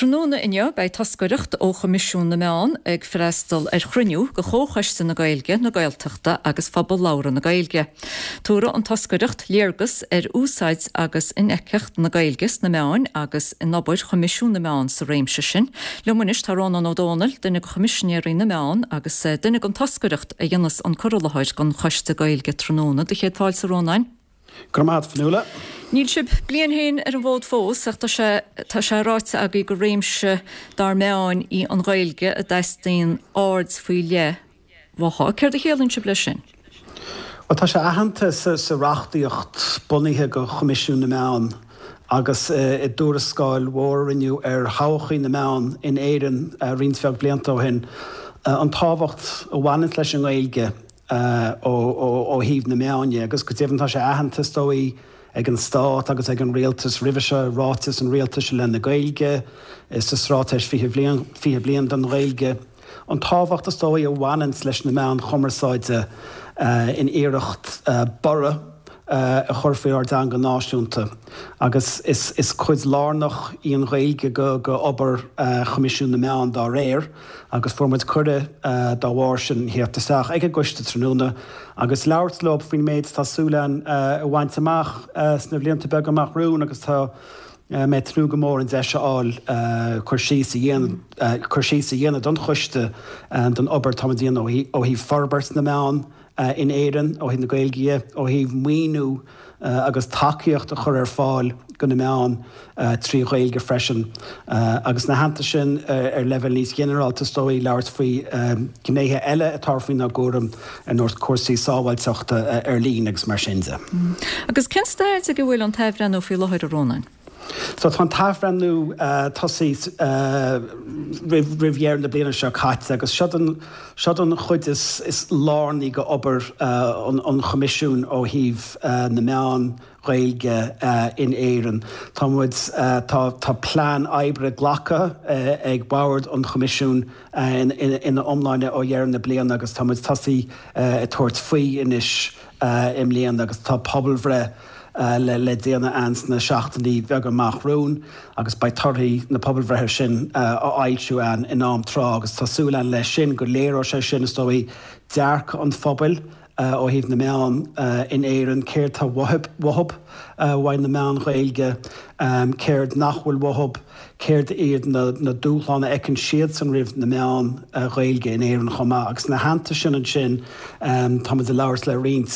Tráthnóna inniu beidh toscaireacht ó Choimisiún na Meán ag freastal ar chruinniú de Chomhchoiste na Gaeilge, na Gaeltachta agus Phobal Labhartha na Gaeilge. Tabharfaidh an toscaireacht léargas ar úsáid agus infheictheacht na Gaeilge sna meáin agus in obair Choimisiún na Meán sa réimse sin. Liom anois tá Rónán Ó Domhnaill, duine de Choimisinéirí na Meán agus duine den toscaireacht a dhéanfas an cur i láthair don Choiste Gaeilge tráthnóna. Do chéad fáilte a Rónáin. Go raibh maith agat, Fionnuala. Níl sibh bliain féin ar an bhfód fós ach tá sé tá sé ráite agaibh gur réimse dár meáin í an Ghaeilge a dteastaíonn aird faoi leith uaithi. Céard a chiallaíonn sibh leis sin? Bhuel, tá sé aitheanta sa reachtaíocht bunaithe do Choimisiún na Meán agus i dtuarascáil mhór a rinneadh ar thodhchaí na meán in Éirinn roinnt bheag blianta ó shin, an tábhacht a bhaineanns leis an nGaeilge. ó thaobh na meán dhe, agus go deimhin tá sé aitheanta, is dóigh, ag an Stát agus ag an Rialtas roimhe seo i Ráiteas an Rialtais i leith na Gaeilge, sa Straitéis 20 Bliain, 20 Bliain don Ghaeilge, an tábhacht, is dóigh, a bhaineanns leis na meáin chumarsáide in iarracht borradh a chur faoi ár dteanga náisiúnta. Agus is cuid lárnach í an Ghaeilge de obair Choimisiún na Meán dá réir. agus fuair muid cuireadh dá bharr sin theacht isteach ag an gcoiste tráthnóna agus labhairt leo faoin méid atá súil againn a bhaint amach sna blianta beaga amach romhainn agus tá mé ag tnúth go mór an deis a fháil cur síos a dhéanamh cur síos a dhéanamh don choiste don obair atá muid a dhéanamh ó thaobh forbairt na meán in Éirinn ó thaobh na Gaeilge dhe, ó thaobh maoiniú agus tacaíocht a chur ar fáil do na meáin trí Ghaeilge freisin. Agus ina theannta sin, ar leibhéal níos ginearálta is dóigh, labhairt faoi ghnéithe eile atá faoinár gcúram, ar nós cúrsaí sábháilteachta ar líne agus mar sin de. Agus cén staid ag a bhfuil an t-athbhreithniú faoi láthair, a Rónáin? So tá an t-athbhreithniú tosaithe roimh dheireadh na bliana seo caite agus seod an chuid is lárnaí de obair an Choimisiúin ó thaobh na meán Ghaeilge in Éirinn. Tá muid, tá plean oibre glactha ag Bord an Choimisiúin ina iomláine ó dheireadh na bliana agus tá muid tosaithe ag tabhairt faoi anois i mbliana agus tá pobalbhreith le déanamh ann sna seachtainí beaga amach romhainn agus beidh torthaí na pobalbhreithe sin á fhoilsiú ann in am tráth agus tá súil ann leis sin go léireoidh sé sin, is dóigh, dearcadh an phobail ó thaobh na meán in Éirinn, céard tá uathu uaidh na meáin Ghaeilge, céard nach bhfuil uathu. Céard iad na dúshláin a fheiceann siadsan roimh na meáin Ghaeilge in Éirinn chomh maith? Agus ina theannta sin ansin, táimid ag labhairt le roinnt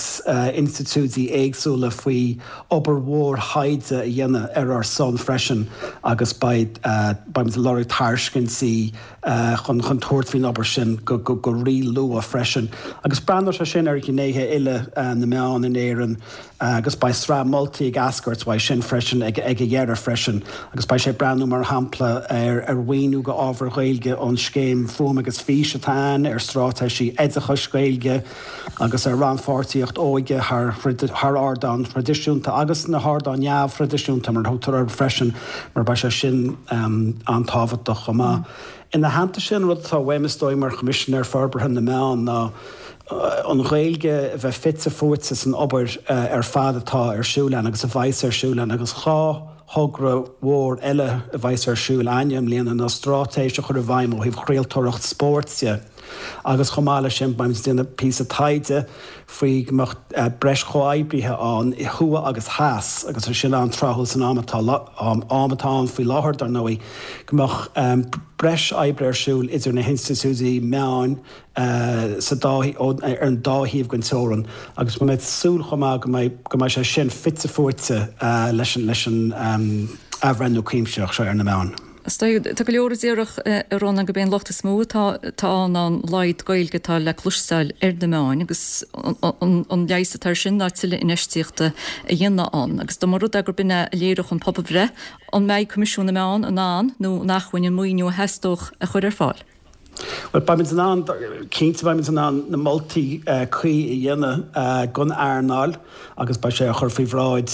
institiúidí éagsúla faoi obair mhór thaighde a dhéanamh ar ár son freisin agus beidh beimid ag lorg tairiscintí chun chun tabhairt faoin obair sin go go rí-luath freisin. Agus breathnóidh sé sin ar ghnéithe uile na meán in Éirinn. agus beidh sraith moltaí ag eascairt uaidh sin freisin ag a dheireadh freisin agus beidh sé ag breathnú mar shampla ar ar mhaoiniú go ábhair Ghaeilge ón scéim Fuaim agus Fís atá ann, ar straitéisí oideachais Gaeilge agus ar rannpháirtíocht óige thar thar ardáin thraidisiúnta agus na hardáin neamhthraidisiúnta mar a thugtar orthu freisin mar beidh sé sin an-tábhachtach chomh maith. Ina theannta sin, rud atá uaim is dóigh mar Choimisinéir Forbartha na Meán ná an Ghaeilge a bheith fite fuaite san obair ar fad atá ar siúl ann agus a bheas ar siúl ann agus 2 thogra mhór eile a bheas ar siúl againne i mbliana ná straitéis a chur i bhfeidhm ó thaobh chraoltóireacht spóirt de agus chomh maith leis sin beimid ag déanamh píosa taighde faoi go mbeadh breis chomhoibrithe ann thuaidh agus theas agus é sin an-tráthúil san am atá am atá ann faoi láthair dar ndóigh go mbeadh breis oibre ar siúl idir na hinstitiúidí meáin sa dá ar an dá thaobh den teorainn agus tá mé ag súil chomh maith go mbeidh go mbeidh sé sin fite fuaite leis an leis an athbhreithniú cuimsitheach seo ar na meáin. Is dóigh, tá go leor a déarfadh, a Rónáin, gurb é an locht is mó atá atá ann ná an laghad Gaeilge atá le cloisteáil ar na meáin agus an leigheas atá air sin ná tuilleadh infheistíochta a dhéanamh ann. Agus dá mba rud é gurb in é a léireodh an pobalbhreith, an mbeidh Coimisiún na Meán in ann nó in acmhainn an maoiniú a theastódh a chur ar fáil? Bhuel, beimid in ann, cinnte beimid in ann na moltaí cuí a dhéanamh don earnáil agus beidh sé á chur faoi bhráid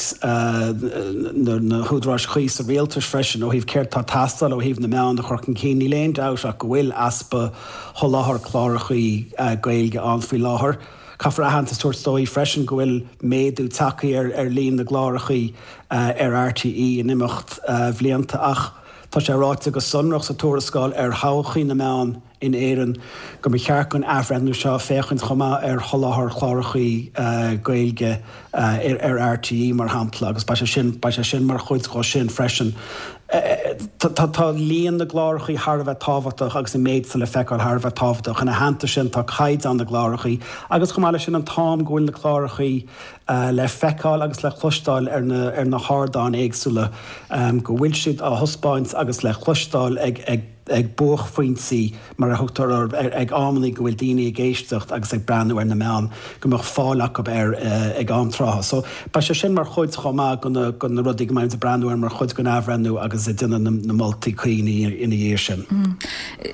na húdaráis chuí sa rialtas freisin ó thaobh céard atá ag teastáil ó thaobh na meán a chur chun cinn. Níl aon dabht ach go bhfuil easpa sholáthar clárachaí Gaeilge ann faoi láthair. Caithfear aitheantas a thabhairt dóibh freisin go bhfuil méadú tagtha ar líon na gclárachaí ar RTÉ in imeacht bhlianta ach. Tá sé ráite go sonrach sa tuarascáil ar thodhchaí na meán in Éirinn go mba cheart don athbhreithniú seo féachaint chomh maith ar sholáthar chlárachaí Gaeilge ar RTÉ, mar shampla, agus beidh sé sin, beidh sé sin mar chuid dhó sin freisin. Tá líon na gclárachaí thar a bheith tábhachtach agus an méid atá le feiceáil thar a bheith tábhachtach. Ina theannta sin tá caighdeán na gclárachaí agus chomh maith leis sin an t-am go bhfuil na clárachaí le feiceáil agus le cloisteáil ar na ar na hardáin éagsúla, go bhfuil siad á thaispeáint agus le cloisteáil ag ag ag buaicphointí, mar a thugtar orthu, ag amannaí go bhfuil daoine ag éisteacht agus ag breathnú ar na meáin, go mbeadh fáil acu air ag am trátha. So, beidh sé sin mar chuid chomh maith de na rudaí go mbeimid ag breathnú air mar chuid den athbhreithniú agus ag déanamh na moltaí cuí ina dhiaidh sin.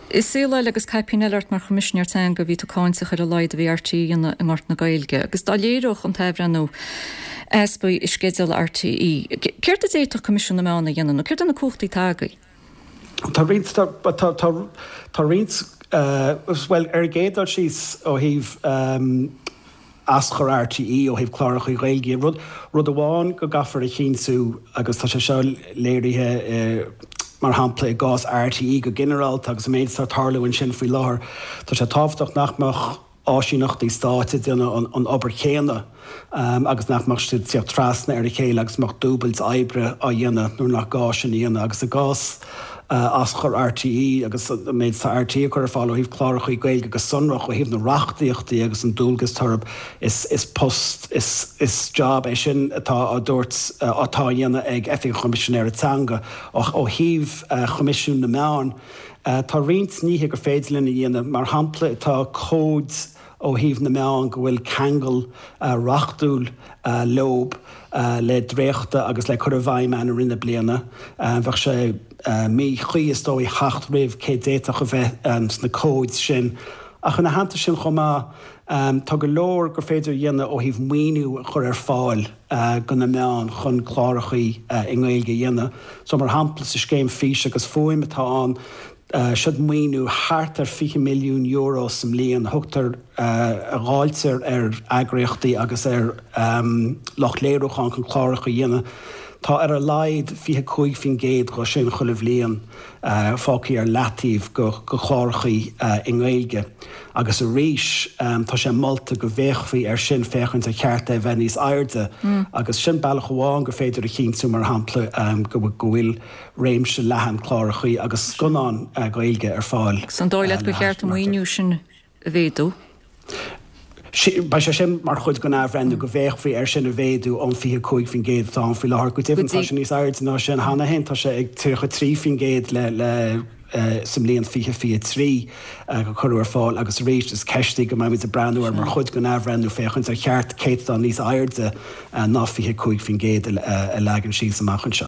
I saol eile agus caipín eile ort mar Choimisinéir Teanga, bhí tú cáinteach ar a laghad a bhí RTÉ a dhéanamh i ngort na Gaeilge agus dá léireodh an t-athbhreithniú easpaí i sceideal RTÉ, céard a d'fhéadfadh Coimisiún na Meán a dhéanamh nó céard é na cumhachtaí atá agaibh? Tá roinnt, tá, tá, tá roinnt, bhuel, ar an gcéad dul síos ó thaobh aschur RTÉ, ó thaobh cláracha Gaeilge, rud, rud amháin go gcaithfear a chinntiú, agus tá sé seo léirithe mar shampla i gcás RTÉ go ginearálta agus an méid atá ag tarlú ansin faoi láthair, tá sé tábhachtach nach mbeadh, áisíneachtaí stáit ag déanamh an obair chéanna agus nach mbeadh siad ag tíocht trasna ar a chéile agus mbeadh dúbailt oibre á dhéanamh nuair nach gá sin a dhéanamh. Agus i gcás aschur RTÉ agus an méid atá RTÉ ag cur ar fáil ó thaobh clárachaí Gaeilge go sonrach ó thaobh na reachtaíochtaí agus an dualgas atá orthu, is post, is job é sin atá á dtabhairt, atá á dhéanamh ag Oifig an Choimisinéara Teanga. Ó thaobh Choimisiún na Meán, Tá roinnt nithe gur féidir linn a dhéanamh. Mar shampla, tá cóid ó thaobh na meán go bhfuil ceangal reachtúil leob le dréachtadh agus le cur i bhfeidhm ann i rith na bliana. Bheadh sé míchuí, is dóigh, theacht roimh cé d'fhéadfadh a bheith sna cóid sin. Ach ina theannta sin chomh maith, tá go leor gur féidir a dhéanamh ó thaobh maoiniú a chur ar fáil go na meáin chun clárachaí i nGaeilge a dhéanamh. So mar shampla sa scéim Fís agus Fuaim atá ann, siod maoiniú thart ar €20 milliún sa mbliain a thugtar, a dháiltear ar eagraíochtaí agus ar lucht léiriúcháin chun cláracha a dhéanamh. Tá ar a laghad 25% dho sin chuile bhliain fágtha ar leataobh go chlárachaí i nGaeilge. Agus arís, tá sé molta go bhféachfaí air sin féachaint ar cheart é a bheith níos airde. Agus sin bealach amháin gur féidir a chinntiú, mar shampla, go bhfuil réimse leathan clárachaí agus scannán Gaeilge ar fáil. Agus an dóigh leat gur cheart an maoiniú sin a mhéadú? Beidh sé sin mar chuid den athbhreithniú, go bhféachfaí air sin a mhéadú ón 25% atá ann faoi láthair. Go deimhin, tá sé níos airde ná sin cheana féin, tá sé ag 33% le sa mbliain 2023 a cuireadh ar fáil agus arís is ceist í go mbeimid ag breathnú air mar chuid den athbhreithniú féachaint ar cheart céatadán níos airde ná 25% a leagan síos amach anseo.